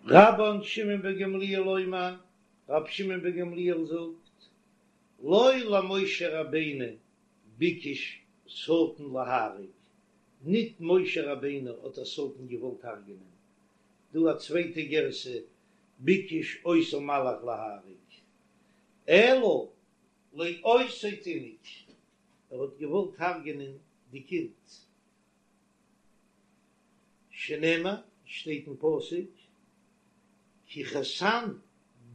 רבן שמעון בן גמליאל אומר, רבי שמעון בן גמליאל זאגט, לא למשה רבינו ביקש שטן להרוג, ניט משה רבינו האט דער שטן געוואלט הרג'נען, דא א צווייטע גירסא, ביקש אותו מלאך להרוג, אלא לאותו תינוק, ער האט געוואלט הרג'נען די קינד, שנאמר, שטייט אין פסוק, כי חתן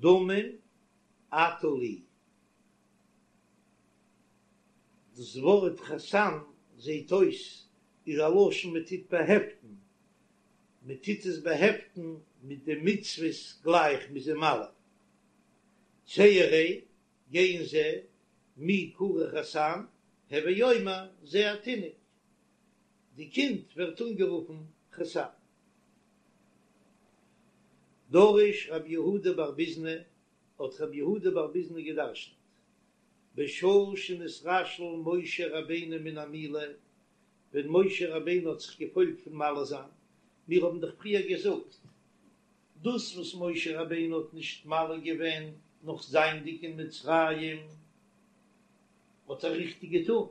דמים אתה לי. דאס ווארט חתן זעט אויס איז א לשון מען טוט באהעפטן, מען טוט עס באהעפטן מיט די מצוות גלייך מ'איז אים מל. צא וראה, גיי און זע, מי קרוי חתן, הוי אומר זה התינוק, די קינד ווערט אנגערופן חתן. דרש רב יהודה בר ביזנא, האט רב יהודה בר ביזנא געדרשנט, בשעה שנתרשל משה רבינו מן המילה, ווען משה רבינו האט זיך געפוילט פון מל זיין, מיר האבן דאך פריער געזאגט, דאס וואס משה רבינו האט נישט מל געווען נאך זייענדיג אין מצרים, האט ער ריכטיג געטון,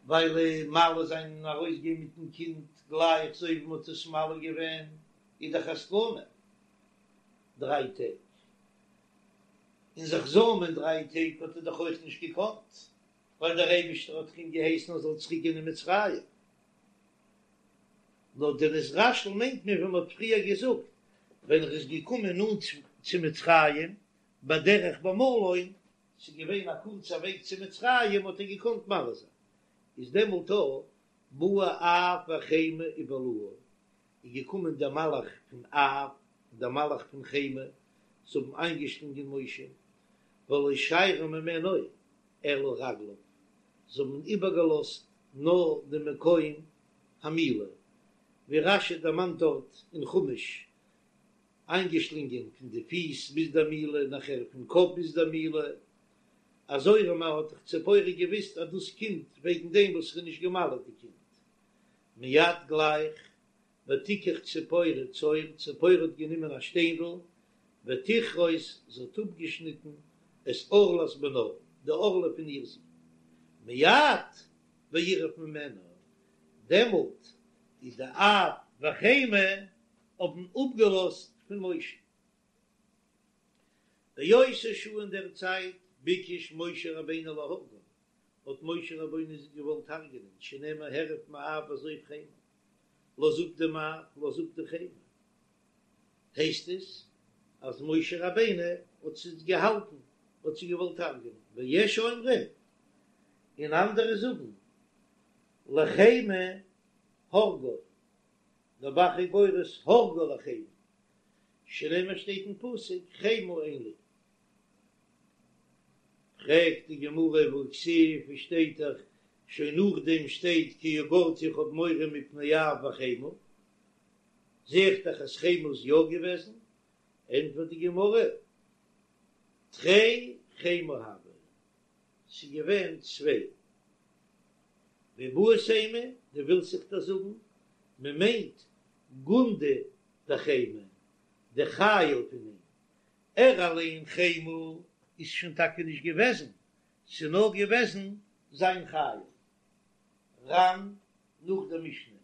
ווייל מל זיין און ארויסגיין מיטן קינד גלייך אזוי ווי מען האט עס מל געווען איז דאך א סכנה דריי טעג, און זיך זוימען דריי טעג האט ער דאך אויך נישט געקאנט, ווייל דער אייבישטער האט אים געהייסן ער זאל צוריק גיין אין מצרים. נאר די נתרשל מיינט מען ווי מען האט פריער געזאגט, ווען ער איז געקומען נאנט צו מצרים בדרך במלון, ס'איז געווען א קורצע וועג צו מצרים האט ער געקאנט מל זיין, איז דעמאלט א באו אף וחמה ובלעוהו, איז געקומען דער מלאך פון אף און דער מלאך פון חמה, זיי האבן איינגעשלונגען משה, ולא שיירו ממנו אלא רגליו, זיי האבן איבערגעלאזט נאר די מקום המילה, ווי רש"י דערמאנט דארט אין חומש, איינגעשלינגען פון די פיס ביז דער מילה, נאכער פון קאפ ביז דער מילה, אזוי ארום האט דאך ציפורה געוויסט אז דאס קומט וועגן דעם וואס ער איז נישט גע'מל'ט די קינד. מיד גלייך, ותיקח ציפורה צור, ציפורה האט גענומען א שטיינדל, ותכרות, זי האט אפגעשניטן את ערלת בנה, די ערלה פון איר זון. מיד וירף ממנה, דעמאלט איז די אף וחמה האבן אפגעלאזט פון משה. באותה שעה אין דער צייט ביקש משה רבינו להורגן, האט משה רבינו זיי געוואלט הרג'נען, שנאמר הרף מאף ועזוב חמה, לאז אפ דעם אף, לאז אפ די חמה. הייסט עס אז משה רבינו האט זיי געהאלטן, האט זיי געוואלט הרג'נען, ויש אומרים, און אנדערע זאגן, לחמה הרגו, דער ב"ח איז גורס הרגו לחמה, שנאמר שטייט אין פסוק חמה אין לי. פרעגט די גמרא והכתיב, ווי שטייט דאך שוין נאכדעם שטייט כי יגורתי איך האב מורא מפני אף וחמה, זע איך דאך אז חמה איז יא געוועזן, ענטפערט די גמרא תרי חמה הוו, ס'איז געווען צוויי. ואיבעית אימא, דו ווילסט זיך דאס זאגן, מען מיינט גונדא דחמה, די חיל פון אים, ער אליין חמה איז שוין טאקע נישט געוועזן, ס'איז נאר געוועזן זיין חיל. ר"ן נאך דער משנה,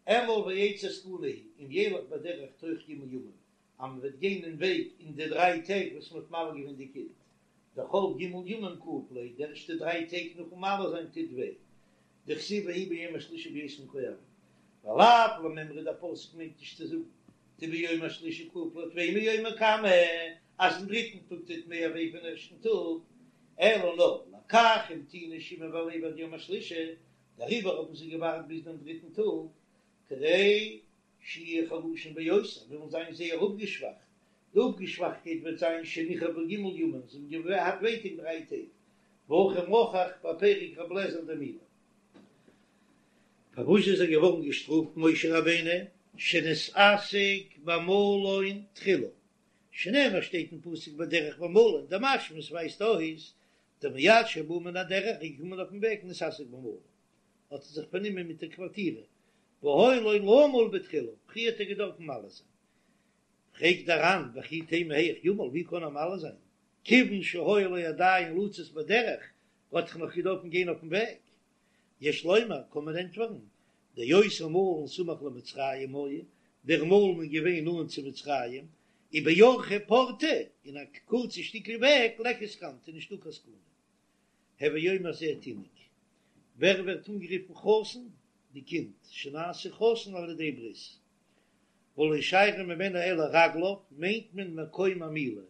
אמול ועצת זקנה היא, אם ילך בדרך תוך ג' ימים, אז מען וועט גיין אין וועג אין די דריי טעג וואס מען האט מל געווען די קינד, דכל ג' ימים כאיב ליה, די ערשטע דריי טעג נאכן מל זיין טוט וויי, דכתיב ויהי ביום השלישי בהיותם כואבים, ולאו למימרא דער פסוק מיינט נישט צו זאגן דביום השלישי כאיב ליה טפי מיומא קמא אז אין דריטן טאג טוט מער וויי פון ערשטן טאג, אלא נאר לכך המתינו שמעון ולוי עד יום השלישי, דעריבער האבן זיי געווארט ביז דעם דריטן טאג, כדי שיהיו חלושים ביותר, וועלן זיין זייער אפגעשוואכט, די אפגעשוואכטקייט וועט זיין שנכאבו ג' ימים, זיי האבן געהאט ווייטאג דריי טעג, והכי מוכח בפרק ר' אליעזר דמילה. פארוואס איז ער געווארן געשטראפט משה רבינו שנתעסק במלון תחילה, שנאמר שטייט אין פסוק בדרך במלון, דמשמע עס ווייזט אויס דמיד שבא מן הדרך איז געקומען אויפן וועג נתעסק במלון האט ער זיך פארנומען מיט דער קווארטירע, והיה לו למול בתחילה, פריער האט ער געדארפן מל זיין. פרעגט דער ר"ן וכי תימא היאך ימול, ווי קען ער מל זיין, כיוון שהיה לו עדיין לצאת בדרך, האט דאך נאך געדארפן גיין אויפן וועג. יש לומר, קען מען ענטפערן, דאותו מלון סמוך למצרים היה, דער מלון איז געווען נאנט צו מצרים, ובאורחא פורתא, אין א קורצע שטיקל וועג, ליכא סכנתא, איז נישטא קיין סכנה. הוי אומר זה תינוק, ווער ווערט אנגערופן חתן? די קינד, שנעשה חתן על ידי ברית. ולא שיירא ממנו אלא רגליו, מיינט מען מקום המילה.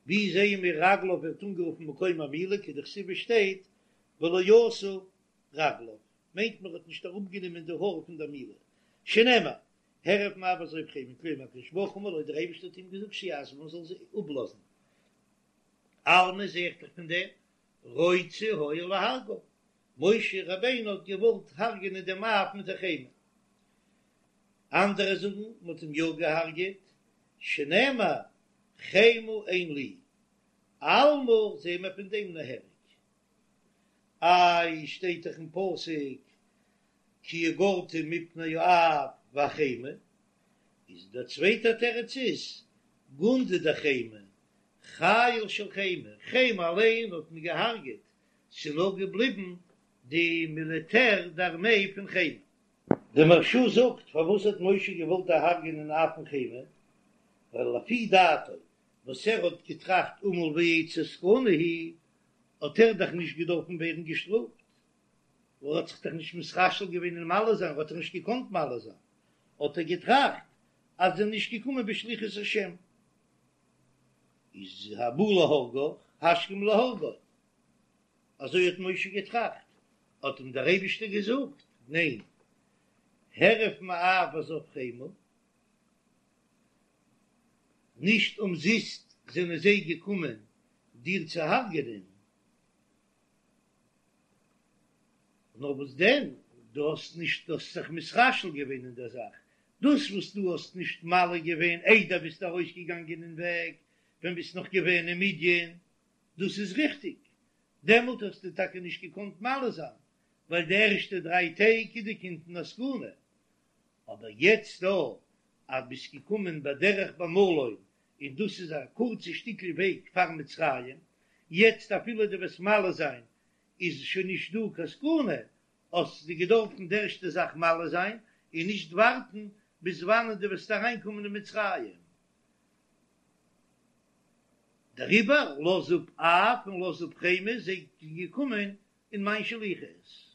ווי זעען מיר רגליו ווערט אנגערופן מקום המילה, כדכתיב שטייט ולא עשה רגליו, מיינט מען האט נישט אראפגענומען די האר פון דער מילה, שנאמר, הרף מאף ועזוב חמה, כלומר הקדוש ברוך הוא אמר לו, דער אייבערשטער האט אים געזאגט שיעזבם מען זאל זיי אפלאזן, אלמא זעה איך דאך פון דעם, רוצה היה להרגו, משה רבינו האט געוואלט הרג'נען דעם אב מיט די חמה, אנדערע זאגן מען האט אים יא געהארגעט, שנאמר חמה אין לי, אלמא זעהן מיר פון דעם נהרג. איי שטייט דאך אין פסוק כי יגורתי מפני האף והחמה, איז דער צווייטער תירוץ איז גונדי דחמה, חיל של חמה, חמה אליין האט מען געהארגעט, ס'איז נאר געבליבן די מיליטער די ארמעי פון חמה. די מהרש"א זאגט פארוואס האט משה געוואלט דערהרגענען אף און חמה, ווייל לפי דעתו וואס ער האט געטראכט אמול ואצא סכנה היא, האט ער דאך נישט געדארפן ווערן געשטראפט, ער האט זיך דאך נישט מתרשל געווען אין מל זיין, ער האט דאך נישט געקאנט מל זיין, האט ער געטראכט אז זיי זענען נישט געקומען בשליחות השם, איז הבא להורגך השכם להורגו, אזוי האט משה געטראכט, האט אים דער אייבישטער געזאגט, ניין, הרף מאף ועזוב חמה, נישט אומזיסט זענען זיי געקומען דיר צו הרג'ענען, נאר וואס דען, דו האסט נישט, דו האסט זיך מתרשל געווען אין דער זאך, דאס וואס דו האסט נישט מל געווען איידער ביסט ארויסגעגאנגען אין וועג, ווען ביסט נאך געווען אין מדין, דאס איז ריכטיג, דעמאלט האסטו טאקע נישט געקאנט מל זיין, ווייל די ערשטע דריי טעג איז די קינד אין א סכנה, אבער יעצט דא אז ביסט געקומען בדרך במלון און דאס איז א קורצע שטיקל וועג פאר מצרים, יעצט אפילו דו וועסט מל זיין איז שוין נישט דא קיין סכנה, האסטו געדארפן די ערשטע זאך מל זיין און נישט ווארטן ביז וואנען דו וועסט אריינקומען אין מצרים. דעריבער לאז אפ אף און לאז אפ חמה, זיי זענען געקומען אין מיין שליחות.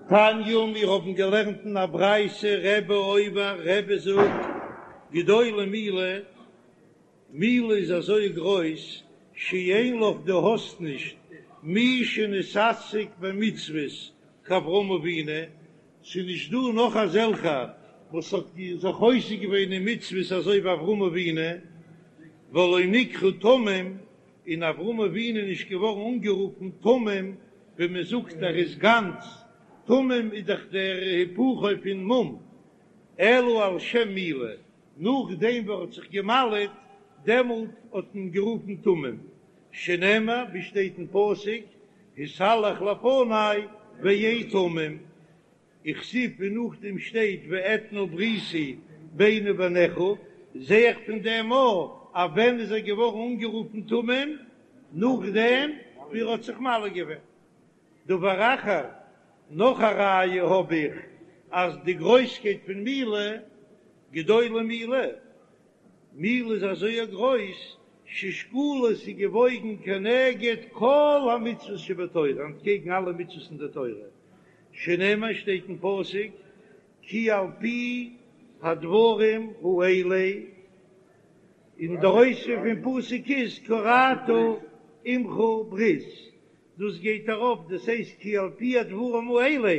תניא, מיר האבן געלערנט אין א ברייתא, רבי אומר, רבי זאגט, גדולה מילה, מילה איז אזוי גרויס, שאין לך דו האסט נישט, מי שנתעסק במצוות כאברהם אבינו, ס'איז נישט דא נאך אזעלכע וואס האט זיך עוסק געווען אין מצוות אזוי ווי אברהם אבינו, ולא נקרא תמים, און אברהם אבינו איז נישט געווארן אנגערופן תמים, ווי מען זאגט ער איז גאנץ, תמים איז דאך דער היפוכו פון מום, אלא על שם מילה, נאכדעם וואס ער האט זיך געמל'עט, דעמאלט האט מען גערופן תמים, שנאמר ווי שטייט אין פסוק, התהלך לפני והיה תמים, וכתיב און נאכדעם שטייט ואתנה בריתי ביני ובינך, זע איך פון דעם א אז ווען איז ער געווארן אנגערופן תמים? נאכדעם ווי ער האט זיך מל געווען. דבר אחר, נאך א ראיה האב איך אז די גרויסקייט פון מילה, גדולה מילה, מילה איז אזוי גרויס, ששקולה ס'איז געוואויגן כנגד כל המצוות שבתורה, אנטקעגן אלע מצוות אין די תורה, שנאמר שטייט אין פסוק כי על פי הדברים האלה, און דער אויספיר פון פסוק איז כרתי עמך ברית, דאס גייט ארויף, דאס הייסט כי על פי הדברים האלה,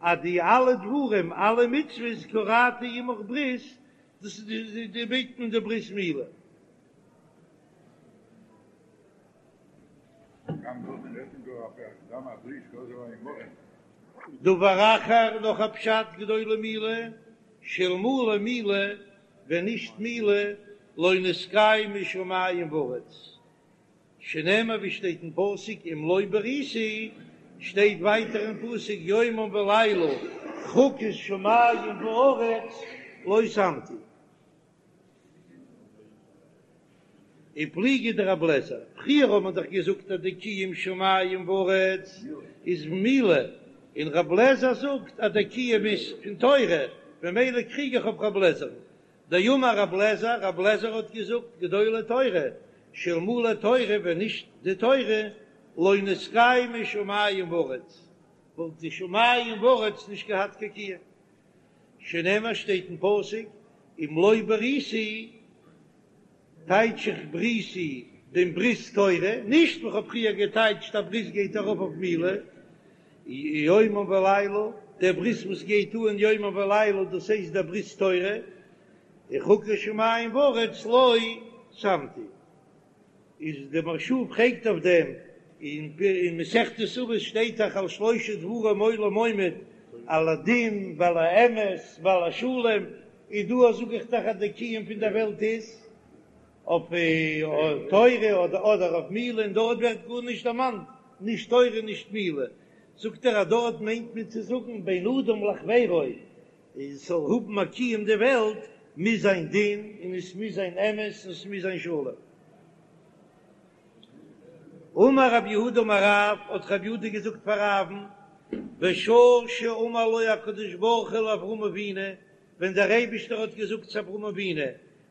אז די אלע דברים, אלע מצוות כרתי עמך ברית, דאס איז די מיינט מען די ברית מילה. דבר אחר, נאך א פשט גדולה מילה, שאלמלא מילה, ווען נישט מילה, לא נתקיימו שמים וארץ, שנאמר ווי שטייט אין פסוק אם לא בריתי, שטייט ווייטער אין פסוק יומם ולילה חוקות שמים וארץ. לא שמתי. ופליגא דרבי אליעזר, פריער האט מען דאך געזאגט אז די קיום שמים וארץ איז מילה, און רבי אליעזר זאגט אז די קיום איז פון תורה, ממילא קריג איך אויף רבי אליעזר'ן. דאמר רבי אליעזר, רבי אליעזר האט געזאגט, גדולה תורה, שאלמלא תורה, ווען נישט די תורה, לא נתקיימו שמים וארץ, וואלט די שמים וארץ נישט געהאט קיין קיום. שנאמר שטייט אין פסוק, אם לא בריתי, טייטש איך בריתי דעם ברית תורה, נישט ווי כ'האב פריער געטייטשט אז ברית גייט ארויף אויף מילה, יומם ולילה, דער ברית וואס גייט אן יומם ולילה דאס הייסט דער ברית תורה, וחוקי שמים וארץ לא שמתי. איז די מהרש"א פרעגט אויף דעם, אין מסכת אבות שטייט דאך על שלשה דברים עולם עומד, על הדין ועל האמת ועל השלום, איז דא זאג איך דאך אז די קיום פון דער וועלט איז אויף תורה אדער אויף מילה, און דארט ווערט גארנישט דערמאנט נישט תורה נישט מילה, זאגט ער אז דארט מיינט מען צו זאגן בין אדם לחבירו, עס זאל האבן א קיום די וועלט, מוז זיין דין און עס מוז זיין אמת און עס מוז זיין שלום. אמר רב יהודה אמר רב, האט רב יהודה געזאגט פאר רב'ן, בשעה שאמר לו הקדוש ברוך הוא לאברהם אבינו, ווען דער אייבישטער האט געזאגט צו אברהם אבינו,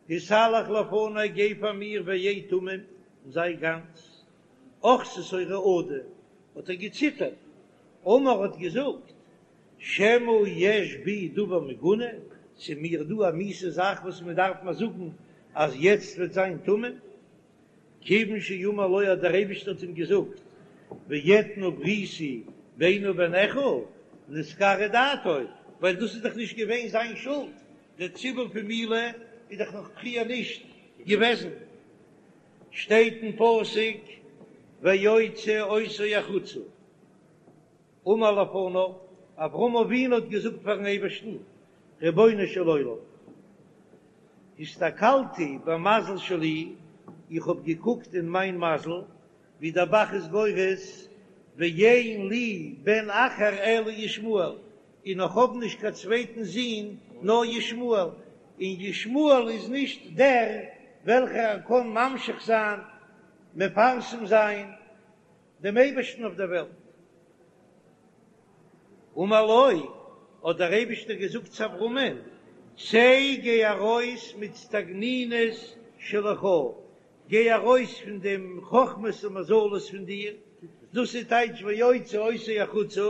התהלך לפני גיי פאר מיר והיה תמים און זיי גאנץ, אחזתו רעדה, האט ער געציטערט, אמר האט געזאגט, שמא יש בי דבר מגונה, ס'איז מיר דא א מיאוסע זאך וואס מען דארף מיר זאגן אז יעצט וועט זיין תמים, כיוון שאמר לו אז דער אייבערשטער האט אים געזאגט ואתנה בריתי ביני ובינך נתקררה דעתו, ווייל דאס איז דאך נישט געווען זיין שולד, דער ציווי פון מילה איז דאך נאך פריער נישט געוועזן, שטייט אין פסוק ויוצא אותו החוצה. אמר לפניו, אברהם אבינו האט געזאגט פארן אייבערשטן, רבונו של עולם, הסתכלתי במזל שלי, איך האב געקוקט אין מיין מזל, ווי דער ב"ח איז גורס, ואין לי בן אחר אלא ישמעאל, און איך האב נישט קיין צווייטן זון נאר ישמעאל, און ישמעאל איז נישט דער וועלכער קען ממשיך זיין, מפרסם זיין, דעם אייבערשטן אויף דער וועלט. אמר לו, האט דער אייבערשטער געזאגט צו אברהמען, צא גיי ארויס מאיצטגנינות שלך, גיי ארויס פון דעם חכמות און מזלות פון דיר, דאס איז טייטש ויוצא אותו החוצה,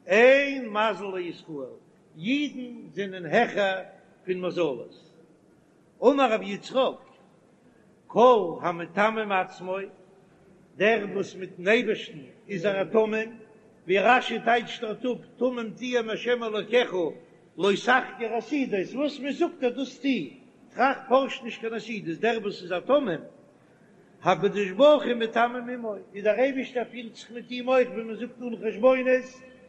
אין מזל לישראל, אידן זענען העכער פון מזלות. אמר רבי יצחק, כל המתמם עצמו, דער וואס מיטן אייבערשטן איז ער א תמים, ווי רש"י טייטשט דארט אפ, תמים תהיה עם השם אלוקיך, לא תחקור עתידות, וואס מען זאגט דיר דאס טו, טראכט פארש נישט קיין עתידות, דער וואס איז א תמים, הקדוש ברוך הוא מתמם עמו, איז דער אייבערשטער פירט זיך מיט אים אויך ווי מען זאגט אן חשבונות,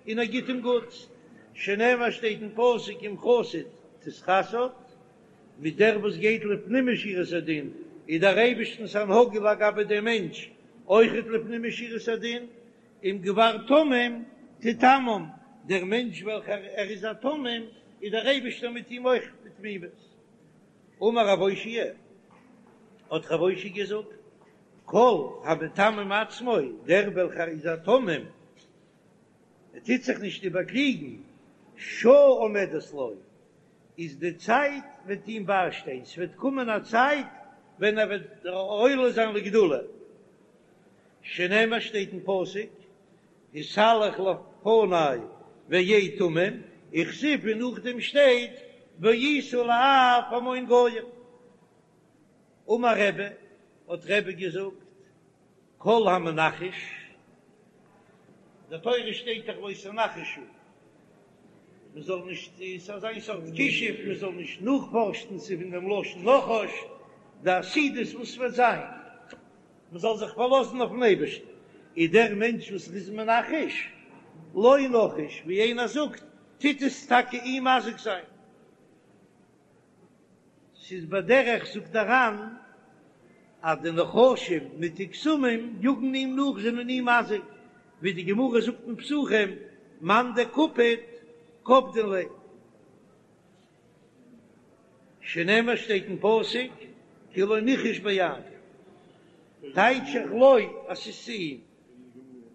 און ער גיט אים גוטס, שנאמר שטייט אין פסוק עם חסיד תתחסד, מיט דער וואס גייט לפנים משורת הדין, איז דער אייבערשטנ'ס הנהגה לגבי דעם מענטש אויכעט לפנים משורת הדין, עם גבר תמים תתמם, דער מענטש וועלכער ער איז א תמים, איז דער אייבערשטער מיט אים אויך בתמימות. אמר רב אושעיא, האט רב אושעיא געזאגט, כל המתמם עצמו, דער וועלכער איז א תמים, ער טוט זיך נישט איבערקליגן, שעה עומדת לו, איז די צייט וועט אים ביישטיין, ס'וועט קומען א צייט ווען ער וועט עולה זיין לגדולה, שנאמר שטייט אין פסוק, התהלך לפני והיה תמים, וכתיב און נאכדעם שטייט והיית לאב המון גוים. אמר רבי, האט רבי געזאגט, כל המנחש, אין די תורה שטייט דאך לא תנחשו, מען זאל נישט, ס'איז אזא סארט כישוף, מען זאל נישט נאכפארשן, ס'איז פון דעם לשון נחש, די עתידות וואס וועט זיין, מען זאל זיך פארלאזן אויפן אייבערשטן, איז דער מענטש וואס איז מנחש, לו נחש, ווי איינער זאגט, טוט עס טאקע אים מזיק זיין. ס'איז בדרך זאגט דער ר"ן אז די נחשים מיט די קסמים יאגן אים נאך זענען אים מזיק, ווי די גמרא זאגט אין פסחים מאן דקפיד קפדין ליה. שנאמר שטייט אין פסוק כי לא נחש ביעקב, טייטש איך לו אז ס'איז צו אים.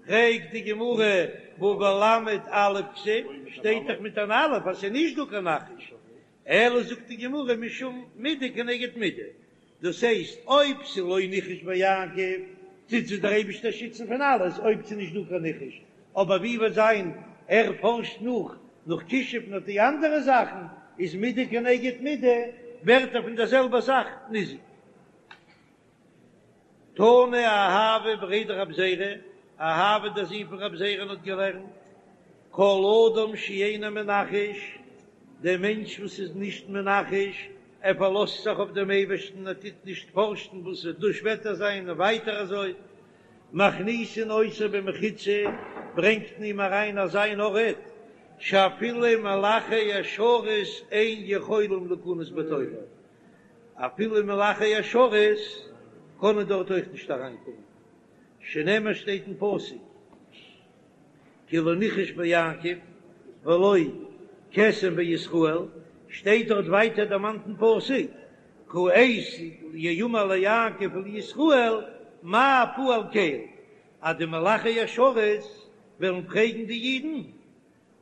פרעגט די גמרא והא בלמ"ד אלף כתיב, שטייט דאך מיט אן אלף אז ס'איז נישט דא קיין נחש, אלא זאגט די גמרא משום מידה כנגד מידה, דאס הייסט אויב ס'איז לא נחש ביעקב טוט זיך דער אייבישטער שיצן פון אלעס אויב ס'איז נישט דא קיין נחש, אבער ווי וועט זיין ער פארשט נאך נאך כישוף נאך די אנדערע זאכן איז מידה כנגד מידה ווערט ער פון דער זעלבער זאך ניזוק. תנא אהבה בריה דרב זירא, אהבה דער זון פון רב זירא'ן האט געלערנט, כל אדם שאינו מנחש, דער מענטש וואס איז נישט מנחש, ער פארלאזט זיך אויף דעם אייבערשטן, ער טוט נישט פארשן וואס וועט דא שפעטער זיין און ווייטער אזוי, מכניסין אותו במחיצה, ברענגט מען אים אריין אזא אן ארט, שאפילו מלאכי השרת אין יכולים להיכנס בתוכו, אפילו מלאכי השרת קענען דארט אויך נישט אריינקומען, שנאמר שטייט אין פסוק כי לא נחש ביעקב ולא קסם בישראל, שטייט דארט ווייטער דערמאנט אין פסוק כעת יאמר ליעקב ולישראל מה פעל קל, אז די מלאכי השרת וועלן פרעגן די אידן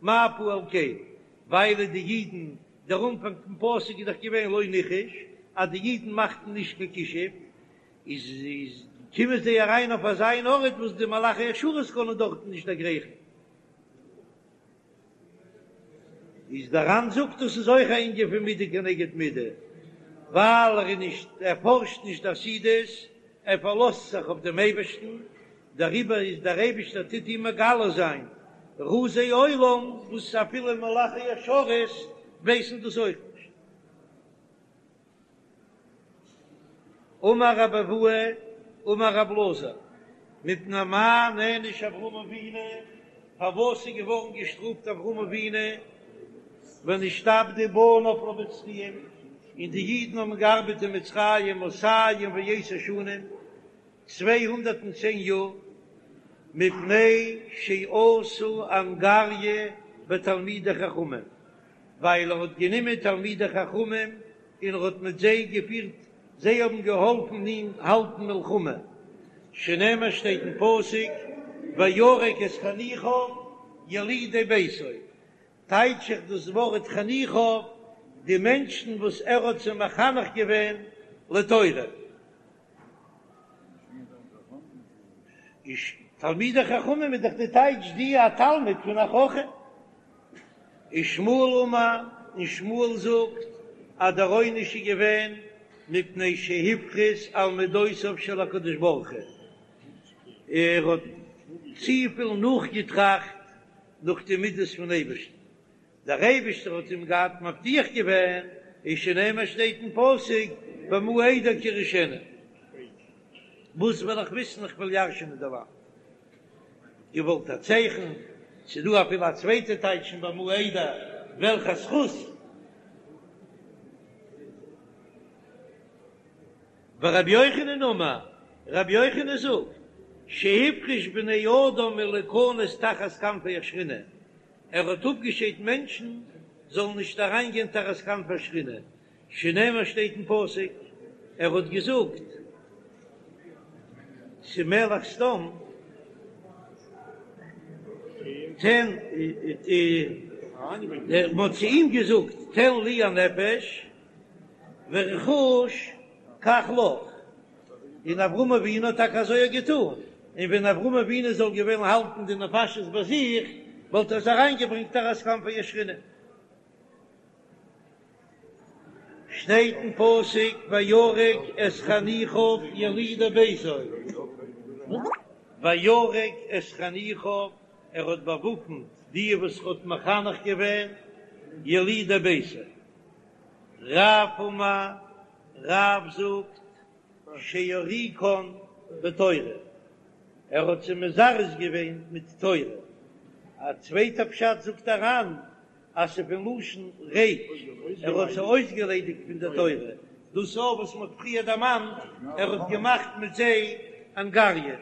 מה פעל קל, ווייל די אידן, דער אנפאנג פון פסוק איז דאך געווען לא נחש, אז די אידן מאכטן נישט קיין כישוף, איז איז קומען זיי אריין אויף אזא אן ארט וואס די מלאכי השרת קענען דארטן נישט דערגרייכן. איז דער ר"ן זאגט דאס איז אויך א ענין פון מידה כנגד מידה, ווייל ער איז נישט ער פארשט נישט די עתידות, ער פארלאזט זיך אויף דעם אייבערשטן, דעריבער איז דער אייבישטער טוט אים מגלה זיין רזי עולם וואס אפילו מלאכי השרת ווייסן דאס אויך נישט. אמר רבי אבהו אמר רבי אלעזר, מפני מה נענש אברהם אבינו, פארוואס איז געווארן געשטראפט אברהם אבינו ונשתעבדו בניו למצרים, און די אידן האבן געארבעט אין מצרים מאתים ועשר שנים, 210 יאר, מפני שעשה אנגריא בתלמידי חכמים, ווייל ער האט גענומען תלמידי חכמים און ער האט מיט זיי געפירט, זיי האבן געהאלפן אים האלטן מלחמה, שנאמר שטייט אין פסוק וירק את חניכיו ילידי ביתו, טייטש איך דאס ווארט חניכיו, די מענטשן וואס ער האט זיי מחנך געווען לתורה. איז תלמידי חכמים איז דאך די טייטש די א תלמיד פון א חכם. ושמואל אמר, און שמואל זאגט אז דער עונש איז געווען מפני שהפריז על מדותיו של הקדוש ברוך הוא, ער האט צופיל נאכגעטראכט נאך די מידות פון אייבערשטן, דער אייבערשטער האט אים געהאט מבטיח געווען, איז שנאמר שטייט אין פסוק במה אדע כי אירשנה, וואס וועל איך וויסן איך וועל ירש'ענען די לאנד, געוואלט א צייכן, ס'איז דא אפילו א צווייטע טייטש אין במה אדע וועלכע זכות. ורבי יוחנן אמר, רבי יוחנן זאגט, שהפריש בני אדם מלהיכנס תחת כנפי השכינה, ער האט אפגעשיידט מענטשן זאלן נישט אריינגיין תחת כנפי השכינה, שנאמר שטייט אין פסוק, ער האט געזאגט צו מלך סדום, תן, מען האט צו אים געזאגט תן לי הנפש ורכוש קח לך, און אברהם אבינו האט טאקע אזוי געטאן, און ווען אברהם אבינו זאל געווען האלטן די נפשות ביי זיך, וואלט ער עס אריינגעברענגט תחת כנפי השכינה. שטייט אין פסוק וירק את חניכיו ילידי ביתו, וירק את חניכיו, ער האט באוואפנט די וואס ער האט מחנך געווען, ילידי ביתו. רב אמר, רב זאגט שהוריקן בתורה, ער האט זיי מזרז געווען מיט תורה. א צווייטע פשט זאגט דער ר"ן אז ס'איז פון לשון ריק, ער האט זיי אויסגעליידיגט פון די תורה, דאס אויך וואס מ'האט פריער דערמאנט, ער האט געמאכט מיט זיי אנגריא.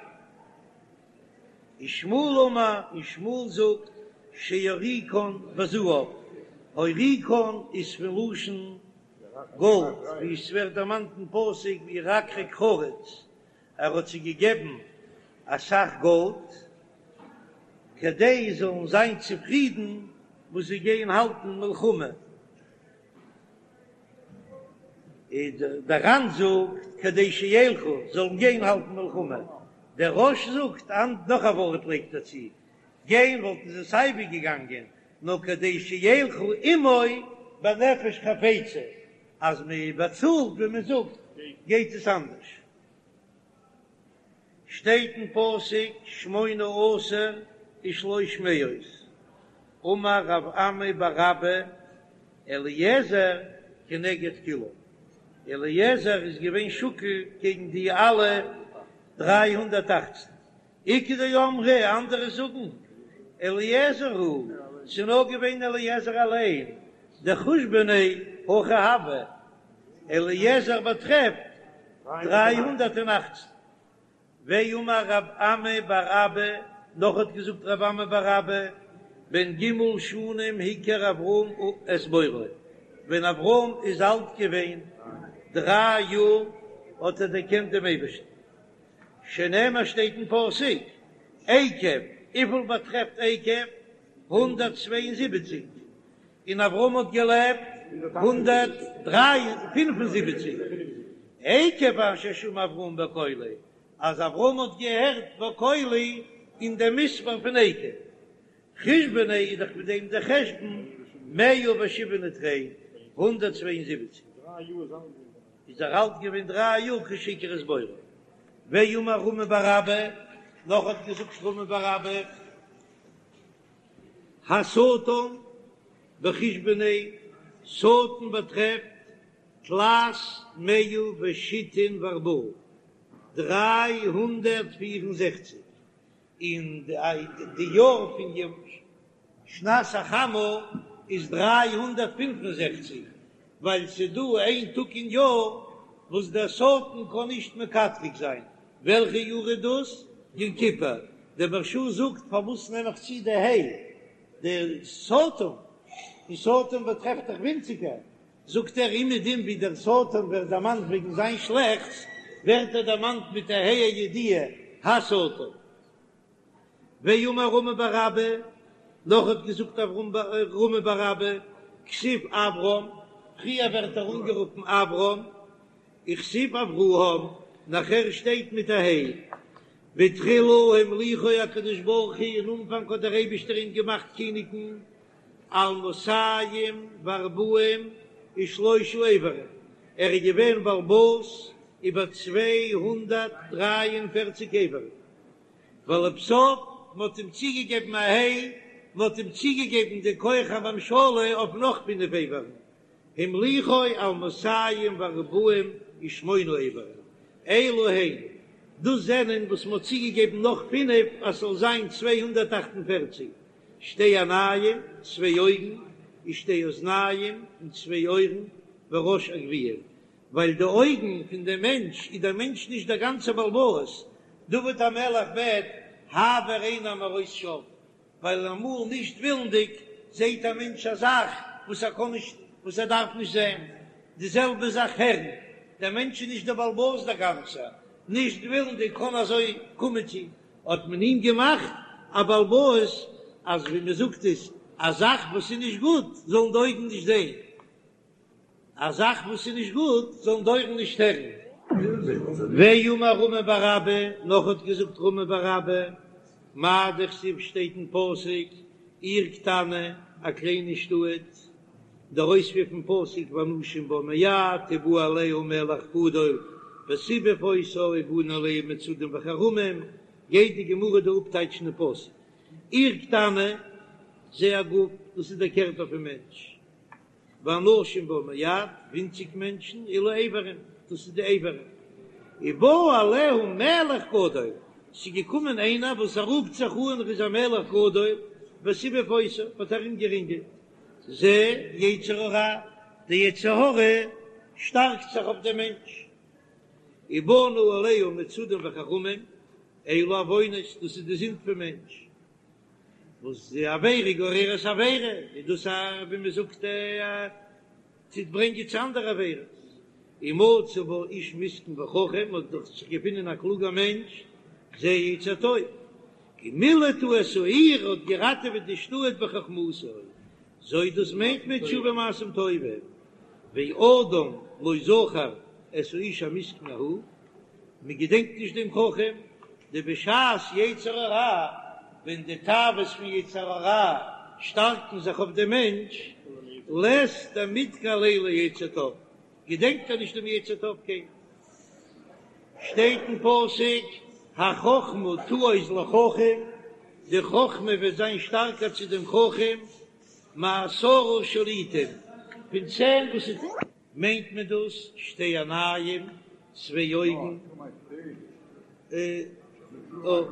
ושמואל אמר, און שמואל זאגט, שהוריקן בזהב, הוריקן איז פון לשון. גאלד, ווי עס ווערט דערמאנט אין פסוק בירקרק חרוץ, ער האט זיי געגעבן אסאך גאלד, כדי זיי זאלן זיין צופרידן וואס זיי גייען האלטן מלחמה. דער ר"ן זאגט כדי שילכו, זאלן גיין האלטן מלחמה, דער רא"ש זאגט נאך א ווארט לייגט ער צו, גיין וואלטן זיי סייווי געגאנגען, נאר כדי שילכו עמו בנפש חפצה, אז מען באצאלט ווי מען זאגט גייט עס אנדערש. שטייט אין פסוק שמונה עשר ושלוש מאות, אמר רב אמי בר אבא אליעזר כנגד כולם, אליעזר איז געווען שקול קעגן די אלע 318, איכא דאמרי, אנדערע זאגן אליעזר הוא, ס'איז נאר געווען אליעזר אליין, דחושבניה הכי הוה, אליעזר באטרעפט 318. ואמר רב אמי בר אבא, נאך האט געזאגט רב אמי בר אבא, בן ג' שנים הכיר אברהם את בוראו, ווען אברהם איז אלט געווען דריי יאר האט ער דערקענט דעם אייבערשטן, שנאמר שטייט אין פסוק, עקב, וויפיל באטרעפט עקב? 172, און אברהם האט געלעבט 175, עקב אשר שמע אברהם בקולי, אז אברהם האט געהערט בקולי אין דעם מספר פון עקב. חושבניה איז דאך מיט דעם דער חשבון מאה ושבעין ותרין, 172. איז ער אלט געווען דריי יאר כשהכיר את בוראו. ואמר רמי בר אבא, נאך האט געזאגט רמי בר אבא, השטן בחושבניה, שטן באטרעפט תלת מאה ושיתין וארבעה, 364, און די יאר פון שנת החמה איז 365, ווייל ס'איז דא איין טאג אין יאר וואס דער שטן קען נישט מקטרג זיין, וועלכע יאר איז דאס? יום כיפור. דער מהרש"א זאגט פארוואס נעם איך צו די ה' די שטן, און שטן באטרעפט דאך ווינציגער, זאגט ער אומעדום ווי דער שטן ווערט דערמאנט וועגן זיין שלעכטס, ווערט ער דערמאנט מיט א ה' הידיעה, השטן. ואמר רמי בר אבא, נאך האט געזאגט רמי בר אבא, כתיב אברם, פריער ווערט ער אנגערופן אברם, וכתיב אברהם, נאכער שטייט מיט א ה'. בתחילה המליכו הקדוש ברוך הוא, אין אנפאנג האט דער אייבישטער אים געמאכט קיניגן, על מאתים וארבעים ושלושה איברים, ער איז געווען בעל הבית איבער 243 איברים, ולבסוף מען האט אים צוגעגעבן א ה', מען האט אים צוגעגעבן די כח הממשלה אויף נאך פינף איברים, המליכו על מאתים וארבעים ושמונה איברים, אלו הן, דאס זענען וואס מען האט צוגעגעבן נאך פינף אז ס'זאל זיין 248, שתי עיניים, צוויי אויגן, ושתי אוזניים, און צוויי אויערן, וראש הגויה, ווייל די אויגן פון דעם מענטש איז דער מענטש נישט דער גאנצער בעל הבית, דוד המלך בעט העבר עיני מראות שוא, ווייל אמאל נישט ווילנדיג זעט א מענטש א זאך וואס ער קען נישט, וואס ער דארף נישט זען, די זעלבע זאך הערן, דער מענטש איז נישט דער בעל הבית דער גאנצער, נישט ווילנדיג קען אזוי קומען צו, האט מען אים געמאכט א בעל הבית אז ווי מען זאגט עס, א זאך וואס איז נישט גוט זאלן די אויגן נישט זען. א זאך וואס איז נישט גוט זאלן די אויערן נישט הערן. ואמר רמי בר אבא, נאך האט געזאגט רמי בר אבא, מאי דכתיב שטייט אין פסוק, עיר קטנה, א קליינע שטאט, דער אויספיר פון פסוק ואנשים בה מעט ובא עליה מלך גדול וסיבב אותה ובנה עליה מצודים וחרמים, גייט די גמרא דא אפטייטשן די פסוק, עיר קטנה, זה הגוף, דאס איז דער קערפער פון מענטש. ואנשים בה מעט, ווינציג מענטשן, אלו איברים, דאס איז די איברים. ובא עליה מלך גדול, ס'איז געקומען איינער וואס ער רופט זיך אן ער איז א מלך גדול, וסיבב אותה, האט ארומגערינגלט, זה יצר הרע, די יצר הרע שטארקט זיך אויף דעם מענטש. ובנה עליה מצודים וחרמים, אלו עוונות, דאס איז די זינד פון מענטש. וואס די עבירה גוררת עבירה, איז דאס א ווי מען זאגט א. טוט ברענגען צו אנדערע עבירות. ומצא בה איש מסכן וחכם, האט דאך זיך געפונען א קלוגער מענטש, זה יצר טוב, ומילט הוא את העיר, האט געראטעוועט די שטאט בחכמתו, זו דאס מיינט מען תשובה ומעשים טובים, ואדם לא זכר את האיש המסכן ההוא, מען געדענקט נישט דעם חכם, דבשעת יצר הרע, ווען די תאוות פון יצר הרע שטארקן זיך אויף דעם מענטש, לית דמדכר ליה ליצר טוב, געדענקט ער נישט דעם יצר טוב קיינמאל. שטייט אין פסוק, החכמה תעוז לחכם, די חכמה וועט זיין שטארקער צו דעם חכם, מעשרה שליטים, פון צען וואס איז. מיינט מען דאס שתי עיניים, צוויי אויגן,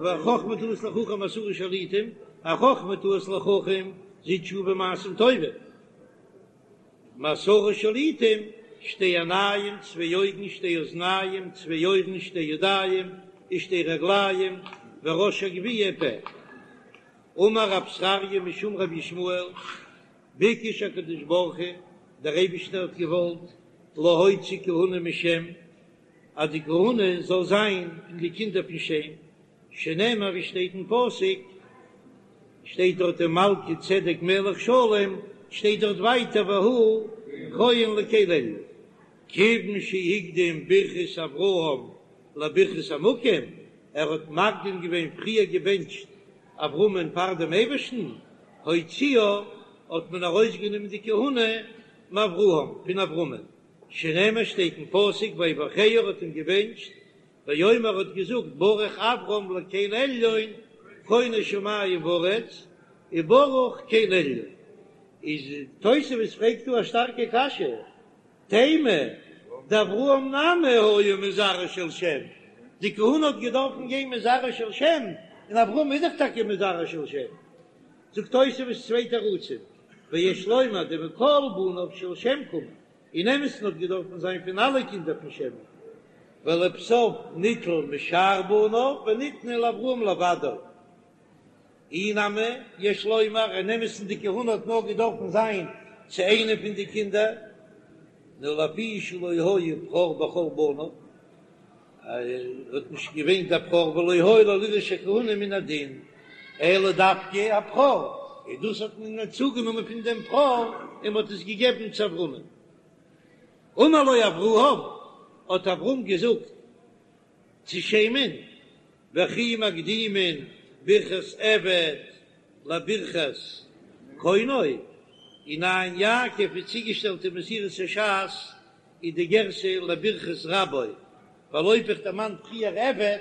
החכמה תעוז לחכם מעשרה שליטים, החכמה תעוז לחכם זו תשובה ומעשים טובים, מעשרה שליטים, שתי עיניים, צוויי אויגן, שתי אוזניים, צוויי אויערן, שתי ידיים, ושתי רגליים, וראש הגויה פה. אמר רב זכריה משום רבי ישמעאל, ביקש הקדוש ברוך הוא, דער אייבישטער האט געוואלט, להוציא כהונה משם, אז די כהונה זאל זיין פון די קינדער פון שם, שנאמר ווי שטייט אין פסוק, שטייט דארט ומלכי צדק מלך שלם, שטייט דארט ווייטער והוא כהן לקל עליון, כיוון שהקדים ברכת אברהם לברכת המקום, ער האט מקדים געווען פריער געבענטשט אברהמען פאר דעם אייבערשטן, הוציאה, האט מען ארויסגענומען די כהונה מאברהם, פון אברהמען, שנאמר שטייט אין פסוק ויברכהו ער האט אים געבענטשט, ויאמר האט געזאגט ברוך אברם לקל עליון קונה שמים וארץ, וברוך קל עליון. איז תוספות פרעגט דא א שטארקע קשיא, תימה, דאברהם נמי היה מזרעו של שם, די כהונה האט געדארפן גיין מזרעו של שם, און אברהם איז דאך טאקע מזרעו של שם. זאגט תוספות צוויי תירוצים, ויש לומר דמכל בניו של שם קאמר, אין אמת'ן האט געדארפן זיין פון אלע קינדער פון שם, ולבסוף ניטל משאר בניו וניתנה לאברהם לבדו. אי נמי, יש לומר, אין אמת'ן די כהונה האט נאר געדארפן זיין צו איינע פון די קינדער, נאר לפי שלא היה בכור בכל בניו, ער האט נישט געווען דער בכור ולא היה לו לירש הכהונה מן הדין, אלא דווקא הבכור, און דאס האט מען צוגענומען פון דעם בכור און מען האט עס געגעבן צו אברהמ'ן. אמר לו אברהם, האט אברהם געזאגט צו שם'ן, וכי מקדימין ברכת עבד לברכת קונו, אין עין יעקב איז צוגעשטעלט אין מסורת הש"ס איז די גירסא לברכת רבו, ווייל אויב איך דערמאן פריער עבד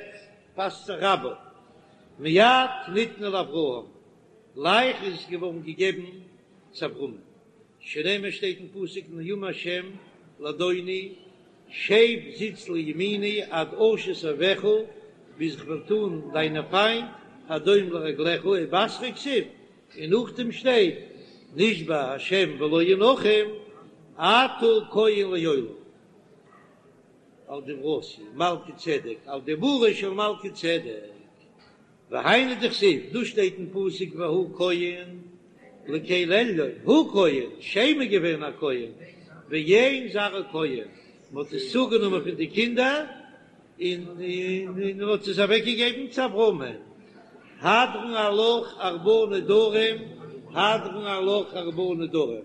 פאסט זיך רבו. מיד ניתנה לאברהם, גלייך איז עס געווארן געגעבן צו אברהמען, שנאמר שטייט אין פסוק נאום השם לאדוני שב זיץ לימיני עד אשית אויביך, ביז איך וועל טאן דיינע פיינט הדום לרגליך, ובתריה כתיב, און נאכדעם שטייט נשבע השם ולא ינחם אתה כהן לעולם. על דברתי מלכי צדק, על דיבורו של מלכי צדק. והיינו דכתיב, דא שטייט אין פסוק והוא כהן לקל עליון, הוא כהן, שם איז געווען א כהן, ואין זרעו כהן, מען האט עס צוגענומען פון די קינדער און מען האט עס אוועק געגעבן צו אברהמען, הדרן עלך ארבעה נדרים, הדרן עלך ארבעה נדרים.